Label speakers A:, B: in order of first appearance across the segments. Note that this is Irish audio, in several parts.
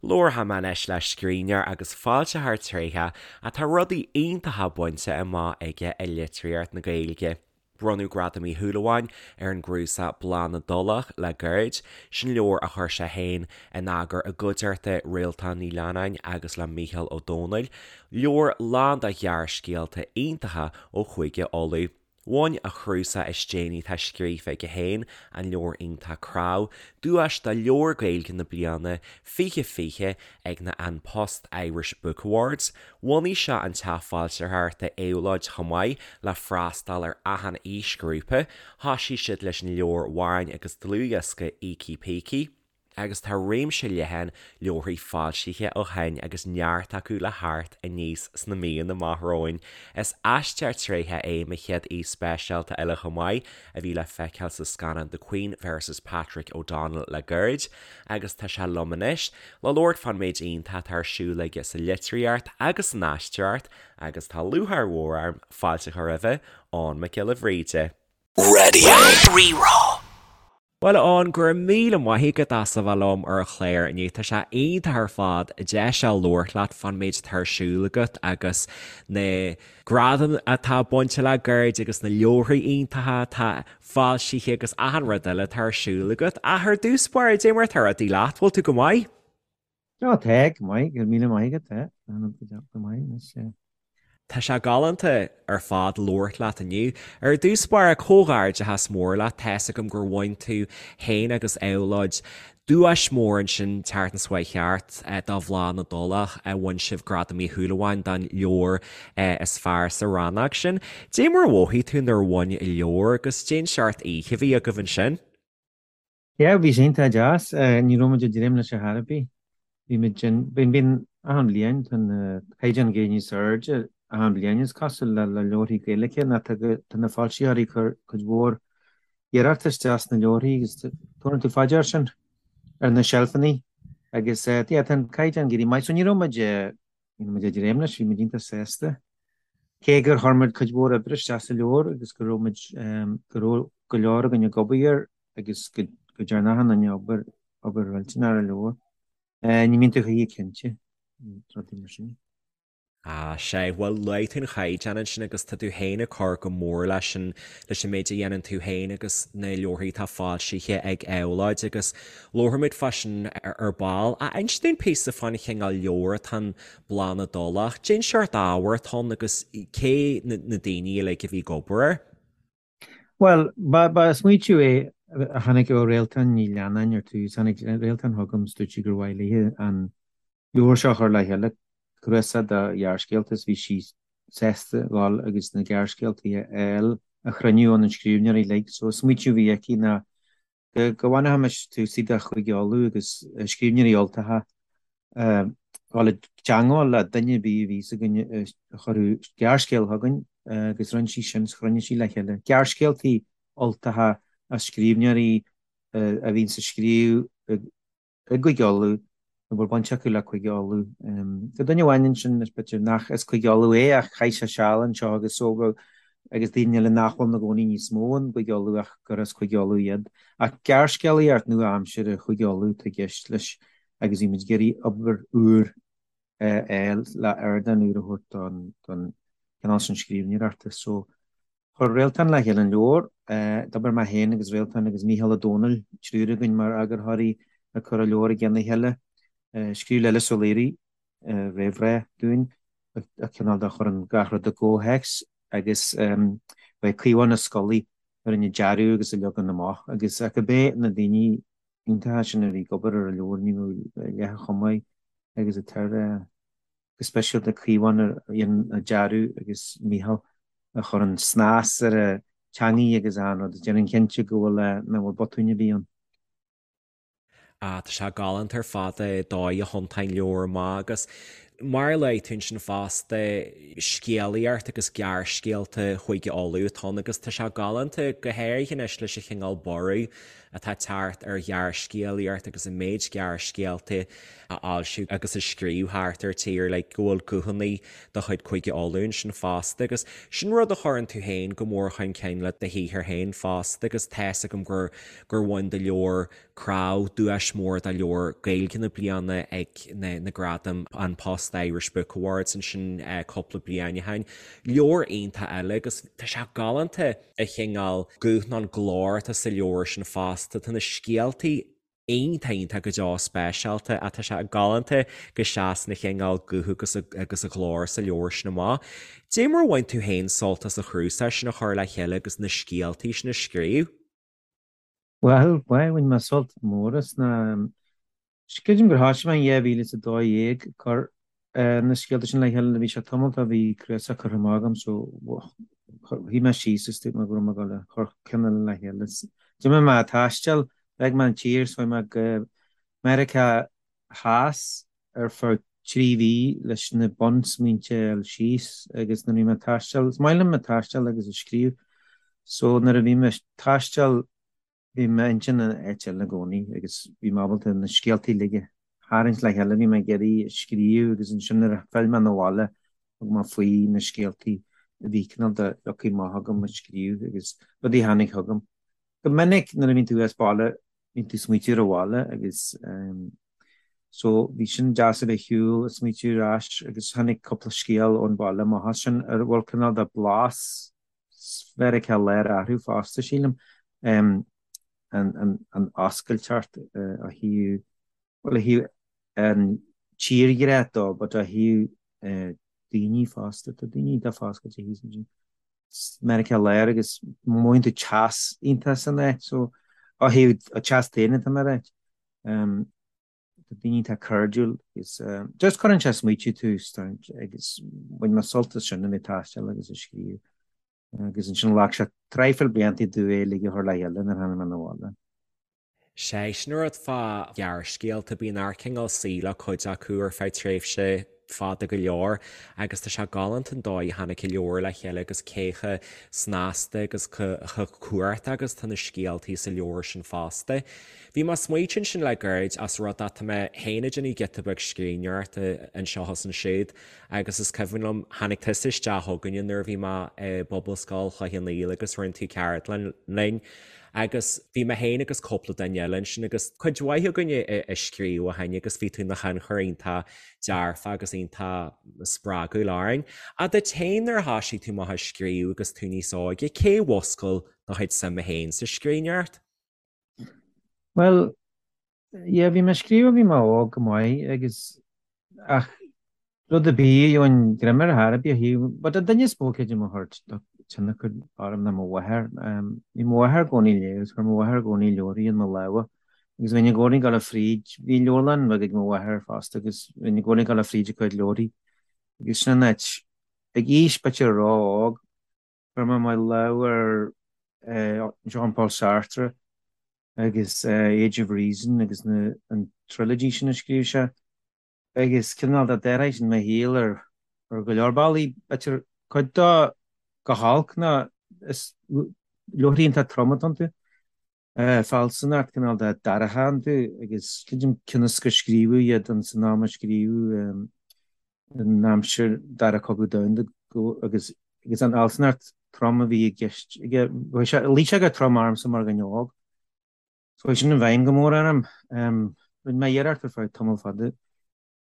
A: Labharfaidh mé anois le scríbhneoir agus foilsitheoir tréitheach atá rudaí iontacha bainte amach aige i litríocht na Gaeilge. Bronnadh Gradam Uí Shúilleabháin ar an gcnuasach Bláth na dTulach le gairid, sin leabhar a chuir sé féin in eagar i gcuideachta Réaltán Ní Leannáin agus le Mícheál Ó Domhnaill, leabhar lán de ghearrscéalta iontacha ó Chúige Uladh. Bhain a chnuasach is déanaí atá scríofa aige féin, an leabhar iontach Cnámh, duais do Leabhar Gaeilge na Bliana 2020 ag na An Post Irish Book Awards. Bhunaigh sé an teach foilsitheoireachta Éabhlóid chomh maith le freastal ar achan aoisghrúpa. Thoisigh siad leis an leabhar amhráin agus dlúthdhiosca Ící Pící. agus tá réimse leathan leabharthaí foilsithe ó shin agus neart acu le theacht aníos sna míonna amach romhainn. Is aisteoir tréitheach é mo chéad aoi speisialta eile chomh maith, a bhí le feiceáil sa scannán The Queen vs Patrick O'Donnell le gairid, agus tá sé liom anois le labhairt fán méid iontach atá ar siúl aige sa litríocht agus san aisteoireacht agus tá lúcháir mhór orm fáilte a chur roimhe, Eoghan Mac Giolla Bhríde.
B: Raidió Rí-Rá.
A: Bhuel, a Eoghain, go raibh míle maith agat as a bheith liom ar an chlár inniu. Tá sé iontach ar fad deis a labhairt leat fán méid atá ar siúl agat agus na gradaim atá bainte le gairid agus na leabharthaí iontacha atá foilsithe agus achan rud eile atá ar siúl agat. Ach ar dtús báire, dé mar atá rudaí leat, bhfuil tú go maith?
C: Tá, tá, go maith, go raibh míle maith agat, tá, go maith anois.
A: Tá sé galánta ar fad labhairt leat inniu. Ar dtús báire, comhghairdeachas mór leat, tá's agam gur bhain tú féin agus Éabhlóid duais mór ansin tseachtain seo chuaigh thart do Bhláth na dTulach, bhain sibh Gradam Uí Shúilleabháin don leabhar is fearr sa rannóg sin. Dé mar a mhothaigh tú nuair a bhain an leabhar agus dén seort oíche a bhí agaibh ansin?
C: Yeah, bhí sé iontach deas. Ní raibh muid ag dréim leis ar chor ar bith. Bhí muid in, bíonn, bíonn achan bhliain, tá an caighdeán ag éirí níos airde achan bhliain is cosúil le, le leabharthaí Gaeilge nó tá, tá na foilsitheoirí ag cur cuid mhór iarracht isteach sna leabharthaí agus tabharann tú fá dear sin ar na seilfeanna agus yeah, tá an caighdeán ag éirí maith. So ní raibh muid, ní raibh muid ag dréim leis, bhí muid iontach sásta. Cé gur chuir muid cuid mhór oibre isteach sa leabhar agus go raibh muid, go raibh go leor againn ag obair air, agus go ndearna achan duine obair, obair mhillteanach ar an leabhar. Ní mbíonn tú choíche cinnte, rudaí mar sin.
A: Ah, sea, bhuel, luaigh tú an chaighdeán ansin agus tá tú féin ag cur go mór leis an, leis an méid a dhéanann tú féin agus na leabharthaí atá foilsithe ag Éabhlóid agus labharfaimid fá sin ar ball. Ach inis dúinn píosa fán chineál leabhar atá in Bláth na dTulach. Cén seort ábhair atá ann agus cé na, na daoine uilig a bhí ag obair air?
C: Bhuel, ba smaoitiú é a tháinig ó Réaltán Ní Leannáin ar tús. Tháinig Réaltán chugam is dúirt sí gur mhaith léi an leabhar seo a chur le chéile, cnuasach de ghearrscéalta, is bhí sí sásta dhul agus na gearrscéaltaí a fháil, a chruinniú ó na scríbhneoirí uilig. So, smaoitiú a bhí aici ná go bhfanfaimis túsaí de Chúige Uladh agus scríbhneoirí Ultacha dul i dteangmháil le duine ar bith a bhí 's againn a chuirfeadh gearrscéal chugainn agus rinne sí sin, chruinnigh sí le chéile gearrscéaltaí Ultacha as scríbhneoirí a bhíonns ag scríobh i gCúige Uladh nó bhfuil baint acu le Cúige Uladh. Tá duine amháin ansin is b'fhéidir nach as Cúige Uladh é ach chaith sé seal anseo agus so agus daoine eile nach bhfuil ina gcónaí níos mó in gCúige Uladh ach gur as Cúige Uladh iad. Ach gearrscéalaíocht nua-aimseartha Chúige Uladh atá i gceist leis agus bhí muid ag iarraidh obair úr a fháil le ardán úr a thabhairt don chineál sin scríbhneoireachta. So Chuir Réaltán le chéile an leabhar. D'obair mé féin agus Réaltán agus Mícheál Ó Domhnaill, triúr againn mar eagarthóirí ag cur an leabhair i gceann a chéile. Scríobh Lillis Ó Laoire réamhrá dúinn, a cineál de chuireann gach rud i gcomhthéacs agus ba é Caomhán Ó Scolaí a rinne an dearadh agus an leagan amach agus ach cibé na daoine iontacha sin a bhí ag obair ar an leabhar ní bheadh leath chomh maith agus atá ar go speisialta Caomhán a dhein an dearadh agus Mícheál a chuireann snas ar an teangaidh agus achan rud, déanann cinnte go bhfuil, nach bhfuil botúin ar bith ann.
A: Ah, tá sé galánta ar fad an dóigh a thiontaíonn leabhar amach agus. Mar a luaigh tú ansin fosta, scéalaíocht agus gearrscéalta Chúige Uladh atá ann agus tá sé galánta, go háirithe anois leis an chineál borradh atá ag teacht ar ghearrscéalaíocht agus an méid gearrscéalta a fhoilsiú agus a scríobh thart ar tír, like, go bhfuil guthanna de chuid Chúige Uladh ansin fosta agus sin rud a chuireann tú féin go mór chun cinn le do shaothar féin fosta agus tá's agam gur gur bhain do leabhar Cnámh duais mór do leabhar Gaeilge na bliana ag na na gradaim An Post Irish Book Awards ansin cúpla bliain ó shin. Leabhar iontach eile agus tá sé galánta an cineál guth nó an glór atá sa leabhar sin fosta. Tá na scéaltaí iontach iontach go deo speisialta ach tá sé galánta go seasann an cineál guth agus agus an glór sa leabhar sin amach. Dé mar a bhain tú féin sult as an chnuasach sin a chur le chéile agus na scéaltaí sin a scríobh?
C: Bhuel, bhain mé sult mór as na. Creidim gur thoisigh mé in 2012 ag cur na scéalta sin le chéile. Bhí sé tamall ó bhí cnuasach curtha amach agam so shuigh mé síos is dúirt mé go raibh mé ag dul a chur ceann eile le chéile. D'imigh mé ag taisteal, d'fhág mé an tír, so chuaigh mé go Meiriceá Theas ar feadh 3 mhí leis na bunsmaointe a fháil síos agus nuair a bhí mé ag taisteal, is maith liom ag taisteal agus ag scríobh so nuair a bhí mé ag taisteal bhí m'intinn in áit eile i gcónaí agus bhí mé ábalta na scéaltaí uilig a tharraingt le chéile, bhí mé ag iarraidh a scríobh agus ansin nuair a phill mé 'na bhaile thug mé faoi na scéaltaí a bhí cineál de leagtha amach agam a scríobh agus rudaí a tháinig chugam. Go minic nuair a bhíonn tú as baile bíonn tú ag smaoitiú ar an bhaile agus so bhí sin deas a bheith ar shiúl ag smaoitiú ar ais agus tháinig cúpla scéal ón bhaile amach as sin a bhfuil cineál de blas Mheiriceá Láir orthu fosta sílim an an oscailteacht ó thaobh bhuel ó thaobh an tírghrá dó but ó thaobh daoine fosta tá daoine iontach foscailte thíos ansin. Meiriceá Láir agus mothaíonn tú teas iontach san áit so ó thaobh teas daonna tá mé ag ráit. Tá daoine iontach cairdiúil agus just cuireann sé ag smaoitiú tú agus bhain mé sult as sin a bheith ag taisteal agus ag scríobh agus ansin ghlac sé traidhfil blianta domh é uilig a chur le chéile nuair a tháinig mé 'na bhaile.
A: Sé sin an rud fá ghearrscéalta, bíonn ort cineál suí le cuid acu ar feadh tréimhse fada go leor agus tá sé galánta an dóigh a tháinig an leabhar le chéile agus cé chomh snasta agus chomh cumhachtach agus tá na scéaltaí sa leabhar sin fosta. Bhí mé ag smaoitiú ansin le gairid ós rud é tá mé féin ag déanamh giota beag scríbhneoireachta anseo is ansiúd agus is cuimhin liom tháinig tusa isteach chugainne nuair a bhí mé i bPobalscoil Chloich Cheann Fhaola agus rinne tú ceardlann linn Agus bhí mé féin agus cúpla duine eile ansin agus cuid mhaith againne ag scríobh ó shin agus bhí tú ina thionchar iontach dearfach agus iontach spreagúil orainn. Ach duit féin nuair a thoisigh tú amach ag scríobh agus tú níos óige, cé a mhúscail do chuid suime féin sa scríbhneoireacht?
C: Bhuel, Yeah, bhí mé ag scríobh ó bhí mé óg go maith agus ach rud ar bith a gheobhainn greim air ar bith a shuíomh. But an duine is mó creidim a chuir tionchar orm ná mo mháthair. Bhí mo mháthair i gcónaí ag léamh agus chuir mo mháthair i gcónaí leabharthaí in mo lámha agus bhínn i gcónaí ag dul fríd. Bhí leabharlann bheag ag mo mháthair fosta agus bhínn i gcónaí ag dul fríd a cuid leabharthaí agus sin an áit ag aois b'fhéidir ró-óg Chuir mé mo lámh ar Jean-Paul Sartre agus Age of Reason agus an trilogy sin a scríobh sé agus cineál de d'athraigh sin mo shaol ar go leor bealaí. B'fhéidir cuid dó go holc ná is leabharthaí iontach trom atá iontu. Fealsúnacht cineál de dorcha iontu agus creidim cionn is gur scríobhadh iad ins an am a scríobhadh in aimsir Dara Cogadh Domhanda agus agus an fhealsúnacht trom a bhí i gceist aige. Luigh sé go trom ormsa mar dhuine óg. So chuaigh sin i bhfeidhm go mór orm. Rinne mé iarracht ar feadh tamall fada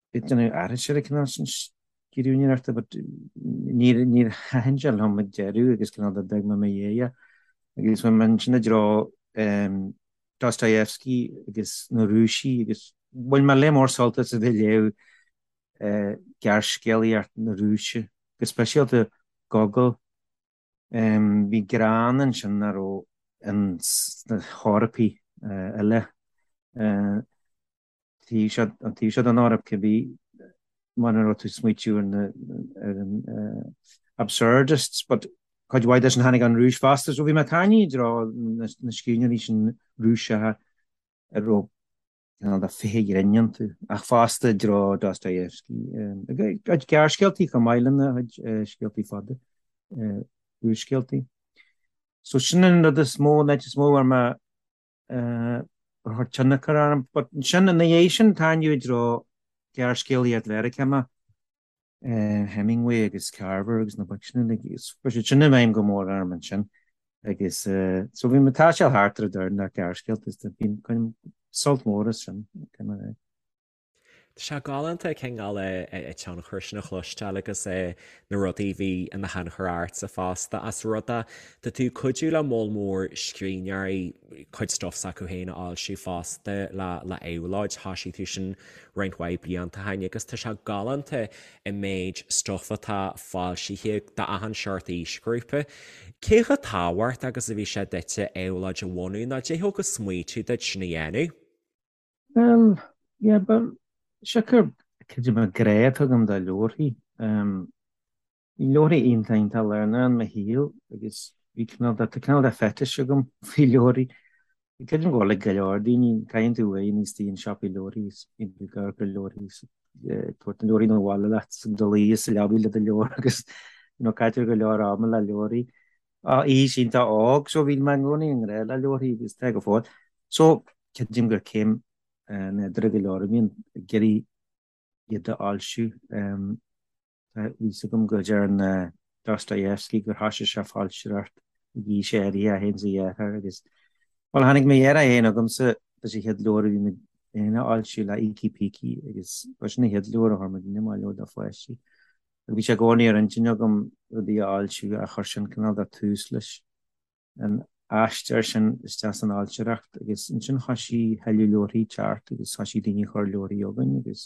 C: ag déanamh aithris ar an cineál sin scríbhneoireachta but níor níor thaitin sé liom ag deireadh agus cineál de d'fhág mé i mo dhiaidh é. Agus bhí mé ansin i dtreo Dostoevsky agus na Rúisigh agus bhain mé lear mór sult as a bheith ag léamh gearrscéalaíocht na Rúise, go speisialta Gogol. Bhí greann ansin nach raibh ins na hEorpaigh eile. Taobh seo, an taobh seo den Eoraip, cibé mar a raibh tú ag smaoitiú ar na, ar an absurdists, but cuid mhaith de sin tháinig ón Rúis fosta, so bhí mé tarraingthe i dtreo na, na scríbhneoirí sin Rúiseacha a raibh. Cineál de féith ghrinn iontu, ach fosta i dtreo Dostoyevsky. A chuid gearrscéaltaí chomh maith lena chuid scéaltaí fada, úrscéaltaí. So sin an rud is mó, an áit is mó a bhfuair mé ar chuir tionchar orm. But ansin, ina dhiaidh sin, tarraingíodh i dtreo gearrscéalaíocht Mheiriceánach. Hemingway agus Carver agus na boic sin uilig, chuir siad sin i bhfeidhm go mór orm ansin agus so bhí mé ag taisteal thart ar an domhan le gearrscéalta is bainim sult mór as sin.
A: Tá sé galánta cineál an tionchar sin a chloisteáil agus na rudaí a bhí ina thionchar ortsa fosta as rud é tá tú ag cuidiú le moll mór scríbhneoirí cuid stuff s'acu féin a fhoilsiú fosta le le Éabhlóid, thosaigh tú sin roinnt mhaith blianta ó shin agus tá sé galánta an méid stuif atá foilsithe d'achan seort aoisghrúpa. Cé chomh tábhachtach agus a bhí sé duitse Éabhlóid a bhunú nó cad é thug an smaoitiú duit sin a dhéanamh?
C: Bhuel, yeah, but siocair creidim an grá atá agam do leabharthaí. Bhí leabharthaí iontach iontach lárnach in mo shaol agus bhí cineál de, tá cineál de fetish agam faoi leabharthaí. Creidim go bhfuil ag go leor daoine, caitheann tú uaidh níos dtí an siopaí leabharthaí is bíonn tú ag amharc ar leabharthaí is ag tabhairt na leabharthaí 'na bhaile leat is ag dul a luí sa leabaidh le do leabhar agus you know caitear go leor ama le leabharthaí. Ó aois iontach óg so bhí mé i gcónaí i ngrá le leabharthaí agus tá go fóill. So creidim gur céim nádúrtha go leor a bhíonn ag iarraidh iad a fhoilsiú. Tá fhios agam go ndearna Dostoyevsky gur thoisigh sé foilsitheoireacht ag aois áirithe, é féin is a dheartháir, agus, bhuel, tháinig mo dheartháir féin chugamsa leis an chéad leabhar a bhí muid féin a fhoilsiú le Ící Pící agus ba sin an chéad leabhar a chuir muidne amach, leabhar do pháistí. Agus bhí sé i gcónaí ar intinn agam rudaí a fhoilsiú ach chuir sin cineál de tús leis. an aistear sin isteach san fhoilsitheoireacht agus ansin thoisigh tuilleadh leabharthaí teacht agus thoisigh daoine ag cur leabharthaí chugainn agus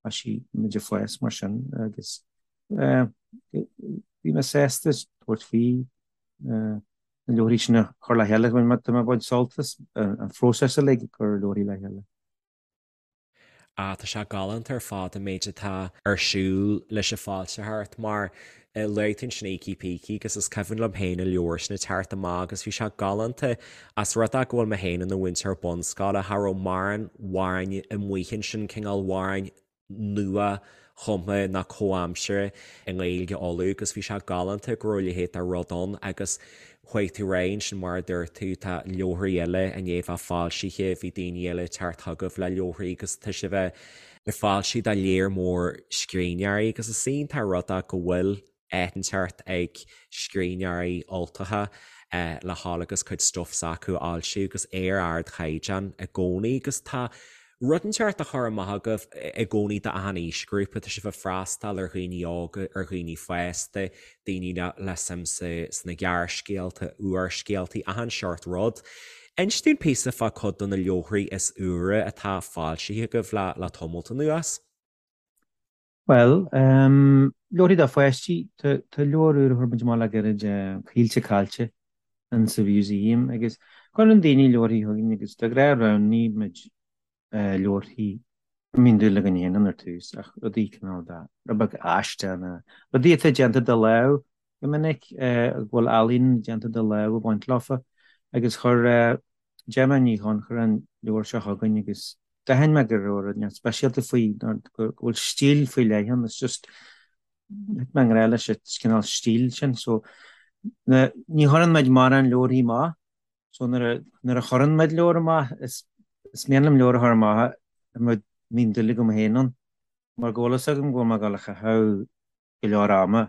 C: thoisigh muid ag fás mar sin agus bhí mé sásta tabhairt faoi na leabharthaí sin a chur le chéile. Tá mé ag baint sult as an phróiseas uilig ag cur leabharthaí le chéile.
A: Ah, tá sé galánta ar fad an méid atá ar siúl leis an bhfoilsitheoireacht mar luaigh tú ansin Ící Pící agus is cuimhin liom féin an leabhar sin ag teacht amach agus bhí sé galánta as rud é go bhfuil mé féin ina mhúinteoir bunscoile, cha raibh mórán amhráin amuigh ansin, cineál amhráin nua chumtha ná comhaimseartha i nGaeilge Uladh agus bhí sé galánta go raibh a leithéid de rud ann agus chuaigh tú ar aghaidh ansin mar a dúirt tú tá leabharthaí eile i ndiaidh bheith foilsithe, bhí daoine eile ag teacht chugaibh le leabharthaí agus tá sibh ag foilsiú do léar mór scríbhneoirí agus is iontach an rud é go bhfuil áit inteacht ag scríbhneoirí Ultacha le dhul agus cuid stuif s'acu a fhoilsiú agus é ar ardchaighdeán i gcónaí agus tá rud inteacht á chur amach agaibh i gcónaí d'achan aoisghrúpa, tá sibh ag freastal ar dhaoine óga, ar dhaoine fásta, daoine le suim sna gearrscéalta, úrscéaltaí, achan seort rud. Inis dúinn píosa fá cuid de na leabharthaí is úire atá foilsithe agaibh le tamalt anuas.
C: Bhuel, leabharthaí do pháistí, tá leabhar úr a chuir muid amach le gairid, Caoilte Caillte in sa Mhúsaem, agus cuireann daoine leabharthaí chugainn agus de ghnáth roghnaíonn muid leabharthaí a mbíonn dúil againn féin ann ar tús, ach rudaí cineál de, rud beag aisteach nó rudaí atá déanta de lámh go minic, go bhfuil ealaín déanta de lámh ag baint leofa, agus chuir Gemma Ní Chonchúir an leabhar seo chugainn agus d'aithin mé go raibh rud inteacht speisialta faoi, nó go bhfuil stíl faoi leith ann, it's just, thit mé i ngrá leis an cineál stíl sin, so ní chuireann muid mórán leabharthaí amach, so nuair a, nuair a chuireann muid leabhar amach, is, is mian liom leabhar a chur amach a mbíonn dúil agam féin ann, mar go bhfuil fhios agam go bhfuil mé ag dul a chaitheamh go leor ama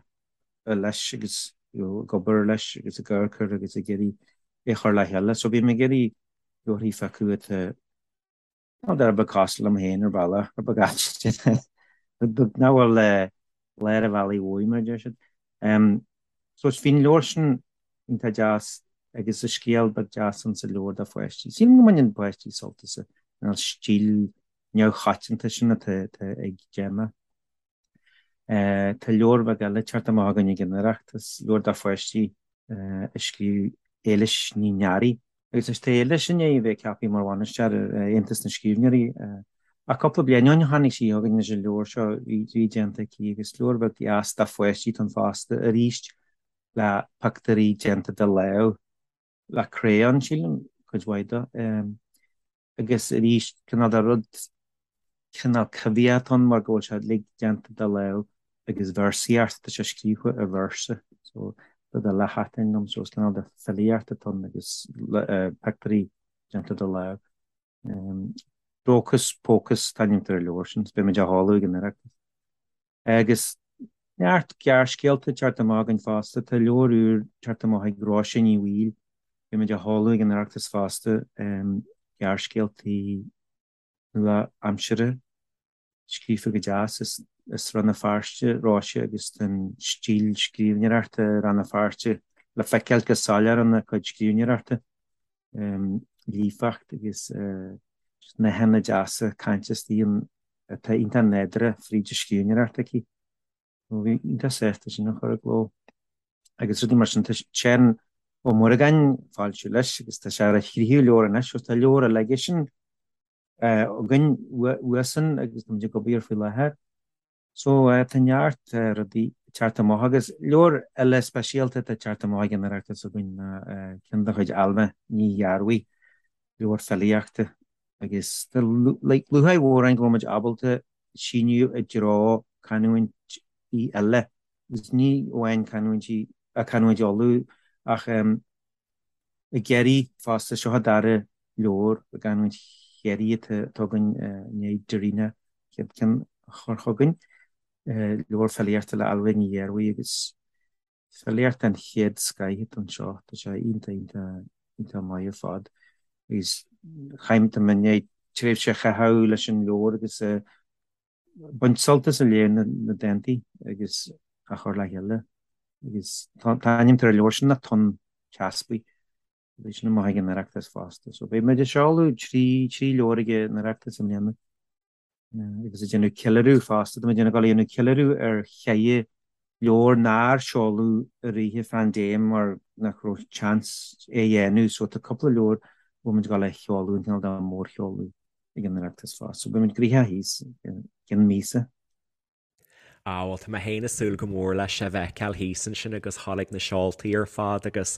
C: leis agus you know ag obair leis agus ag amharc air agus ag iarraidh é a chur le chéile, so bím ag iarraidh leabharthaí a phiocadh atá Rud beag cosúil liom féin ar bhealach, rud beag aisteach, rud beag nach bhfuil lár an bhealaigh uaidh, mar a deir siad. So bhí an leabhar sin iontach deas agus is scéal beag deas ann sa leabhar do pháistí. Sílim go mbaineann páistí sult as an stíl neamhchoitianta sin atá ag Gemma. Tá leabhar beag eile ag teacht amach againn ag an Oireachtas, leabhar do pháistí a scríobh Éilis Ní Nearaí. Agus anois tá Éilis i ndiaidh a bheith ceaptha mar bhainisteoir ar Aontas na Scríbhneoirí. Ach cúpla bliain ó shin tháinig sí chugainn leis an leabhar seo a bhí déanta aici agus leabhar beag deas do pháistí atá ann fosta arís le pictiúirí déanta de lámh, le crayon sílim, cuid mhaith de. Agus arís, cineál de rud, cineál coimhthíoch atá ann mar go bhfuil sé uilig déanta de lámh agus véarsaíocht, tá sé scríofa i véarsa. So, rud eile a thaitin liom, so is cineál de filíocht atá ann agus pictiúirí déanta de lámh. Dóchas Pócas an t-ainm atá ar an leabhar sin, is beidh muid á sheoladh ag an Oireachtas. Agus neart gearrscéalta ag teacht amach againn fosta. Tá leabhar úr ag teacht amach ag Róise Ní Bhaoill, beidh muid á sheoladh ag an Oireachtas fosta, gearrscéaltaí nua-aimseartha, scríofa go deas. Is as Rann na Feirste Róise agus tá an stíl scríbhneoireachta i Rann na Feirste le feiceáil go soiléir ina cuid scríbhneoireachta. Líofacht agus nathanna deasa cainte istigh ann atá iontach nádúrtha fríd an scríbhneoireacht aici. Bhí iontach sásta sin a chur i gcló. Agus rudaí mar sin. Tá Seán Ó Muireagáin ag foilsiú leis agus tá sé ar a thríú leabhar anois agus tá leabhar eile aigesean againn uaidhsean agus táimid ag obair air faoi láthair. So tá neart rudaí ag teacht amach agus leabhar eile speisialta atá ag teacht amach ag an Oireachtas againn ná ceann de chuid Ailbhe Ní Ghearbhuigh, leabhar filíochta agus tá lúcháir mhór orainn go bhfuil muid ábalta síneadh i dtreo canúintí eile agus ní amháin canúintí, canúint Uladh ach i gCiarraí fosta. Seo an dara leabhar i gcanúint Chiarraí atá againn i ndiaidh Darina chéad ceann a chur chugainn, leabhar filíochta le Ailbhe Ní Ghearbhuigh agus filíocht den chéad scoith atá anseo. Tá sé iontach, iontach, iontach maith ar fad agus chaith, tá mé i ndiaidh tréimhse a chaitheamh leis an leabhar agus baint sult as ag léamh na dántaí agus á chur le chéile. Agus tá an t-ainm ar an leabhar sin ná Tonn Teaspaigh. Beidh sin amach ag an Oireachtas fosta. So beidh muid ag seoladh trí trí leabhar ag an Oireachtas i mbliana. Agus ag déanamh ceiliúradh fosta. Tá muid ag dul a dhéanamh ceiliúradh ar cheithre leabhar nár seoladh i rith an phaindéim mar nach raibh chance é a dhéanamh. So tá cúpla leabhar a bhfuil muid ag dul a sheoladh, an cineál de mhórsheoladh. ag an Oireachtas fosta. So beidh muid gnoitheach thíos i gcionn míosa.
A: Á, bhuel, tá mé féin ag súil go mór leis a bhfeiceáil thíos ansin agus dhul ag na seoltaí ar fad agus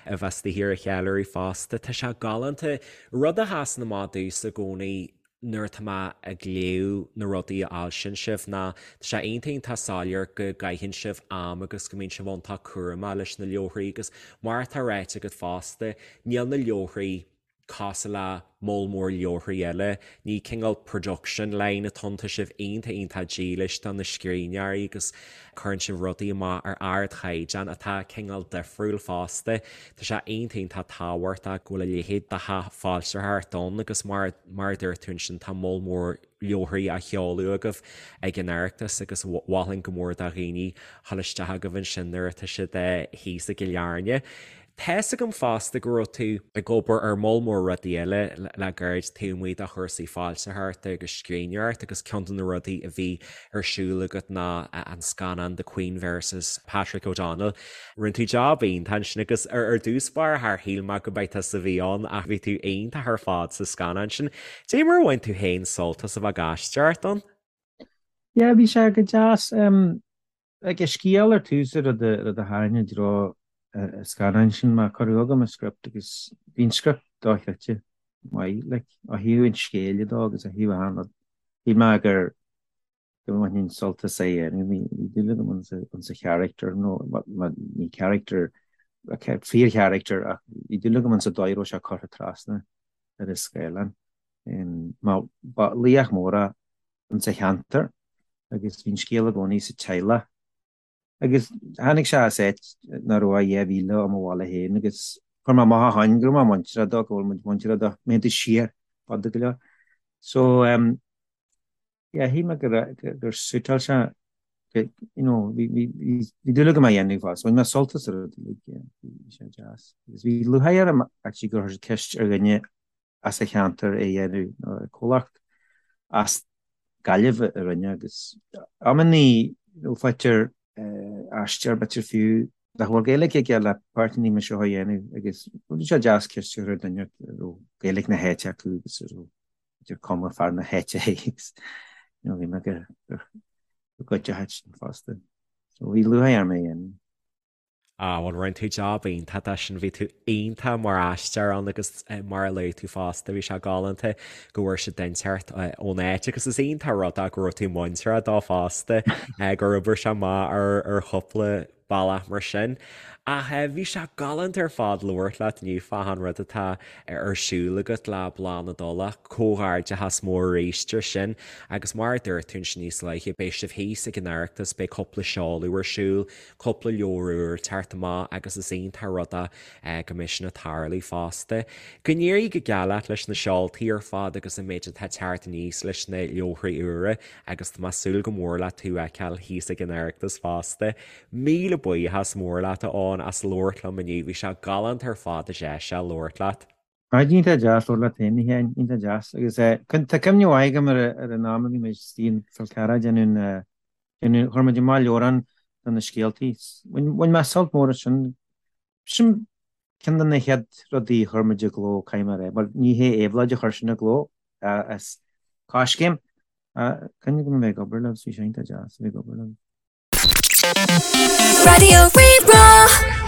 A: a bheith istigh ar an cheiliúradh fosta. Tá sé galánta. Rud a sheasann amach domhsa i gcónaí nuair atá mé ag léamh na rudaí a fhoilsíonn sibh ná tá sé iontach iontach soiléir go gcaitheann sibh am agus go mbíonn sibh iontach cúramach leis na leabharthaí agus mar atá ráite agat fosta, níl na leabharthaí cosúil le moll mór leabharthaí eile. Ní cineál production line atá ann, tá sibh iontach iontach dílis do na scríbhneoirí agus cuireann sibh rudaí amach ar ardchaighdeán atá cineál difriúil fosta. Tá sé iontach iontach tábhachtach go bhfuil a leithéid de theach foilsitheoireachta ann agus mar mar a dúirt tú ansin tá moll mór leabharthaí á sheoladh agaibh ag an Oireachtas agus mholfainn go mór do dhaoine dhul isteach chugaibh ansin nuair atá siad thíos i gCill Airne. Tá's agam fosta go raibh tú ag obair ar moll mór rudaí eile le gairid taobh amuigh de chúrsaí foilsitheoireachta agus scríbhneoireachta agus ceann de na rudaí a bhí ar siúl agat ná an scannán The Queen vs Patrick O'Donnell. Rinne tú jab iontach ansin agus ar dtús báire char shíl mé go mba tusa a bhí ann ach bhí tú iontach ar fad sa scannán sin. Dé mar a bhain tú féin sult as a bheith ag aisteoireacht ann?
C: Yeah, bhí sé go deas. Like, an scéal ar tús an rud a rud a tharraing i dtreo an scannáin sin mar cuireadh chugam an script agus bhí an script dochreidte maith, like, ó thaobh an scéil de agus ó thaobh achan rud. Shíl mé gur go mbainfinn sult as é a dhéanamh. Bhí dúil agam ins an character, nó ní character, fíor-character, ach bhí dúil agam ins an dóigh a raibh sé curtha trasna ar an scáileán. Mar ba laoch mór é ins an cheantar agus bhí an scéal i gcónaí sa teaghlach. Agus tháinig sé as áit nach raibh ach 2 mhíle ó mo bhaile féin agus chuir mé amach ó shoin go raibh mé muinteartha dó, go bhfuil muid muinteartha dó, má théann tú siar fada go leor. So, Yeah, shíl mé gur suiteáil sé, you know, bhí dúil agam é a dhéanamh fosta. Bhain mé sult as an rud uilig, yeah, bhí sé deas. Agus bhí lúcháir orm actually gur chuir siad ceist ar dhuine as an cheantar é a dhéanamh, nó comhlacht as Gaillimh a rinne agus amannaí, you know, faightear aisteoir b'fhéidir fiú nach bhfuil Gaeilge aige le páirteanna mar seo a dhéanamh agus bhí sé deas ceist a chur ar dhuine a raibh Gaeilge na háite acu agus a raibh idir cuma fear na háite agus you know, bhí mé go go gcuideoidh sin fosta. So bhí lúcháir orm é a dhéanamh.
A: Ah, bhuel, rinne tú jab iontach de sin, bhí tú iontach mar aisteoir ann agus mar a luaigh tú fosta, bhí sé galánta go bhfuair siad dintiúr ón áit agus is iontach an rud é go raibh tú muinteartha dó fosta, gur oibir sé amach ar chúpla bealach mar sin. Ach bhí sé galánta ar fad labhairt leat inniu fán rud atá ar siúl agat le Bláth na dTulach. Comhghairdeachas mór arís ar sin agus mar a dúirt tú ansin níos luaithe, beidh sibh thíos ag an Oireachtas, beidh cúpla seoladh ar siúl, cúpla leabhar úr ag teacht amach agus is iontach an rud é go mbeidh sin ag tarlú fosta. Go n-éirí go geal leat leis na seoltaí ar fad agus an méid atá ag teacht aníos leis na leabharthaí úra agus tá mé ag súil go mór le tú a fheiceáil thíos ag an Oireachtas fosta. Míle buíochas mór leat a Eoin as labhairt liom inniu, bhí sé galánta ar fad deis a labhairt leat.
C: Á, iontach deas labhairt leat féin, a Sheáin, iontach deas. Agus tá cuimhne mhaith agam ar an am a bhí muid istigh in Fál Carrach ag déanamh an, déanamh, chuir muid amach leabhrán de na scéaltaí. Bhain mé sult mór as sin. Sin ceann de na chéad rudaí a chuir muid i gcló, caithfidh mé a rá. Bhuel, ní hé Éabhlóid a chuir sin i gcló, is Coiscéim. Cuimhne agam a bheith ag obair leo, bhí sé iontach deas a bheith ag obair leo.
B: Raidió Rí-Rá.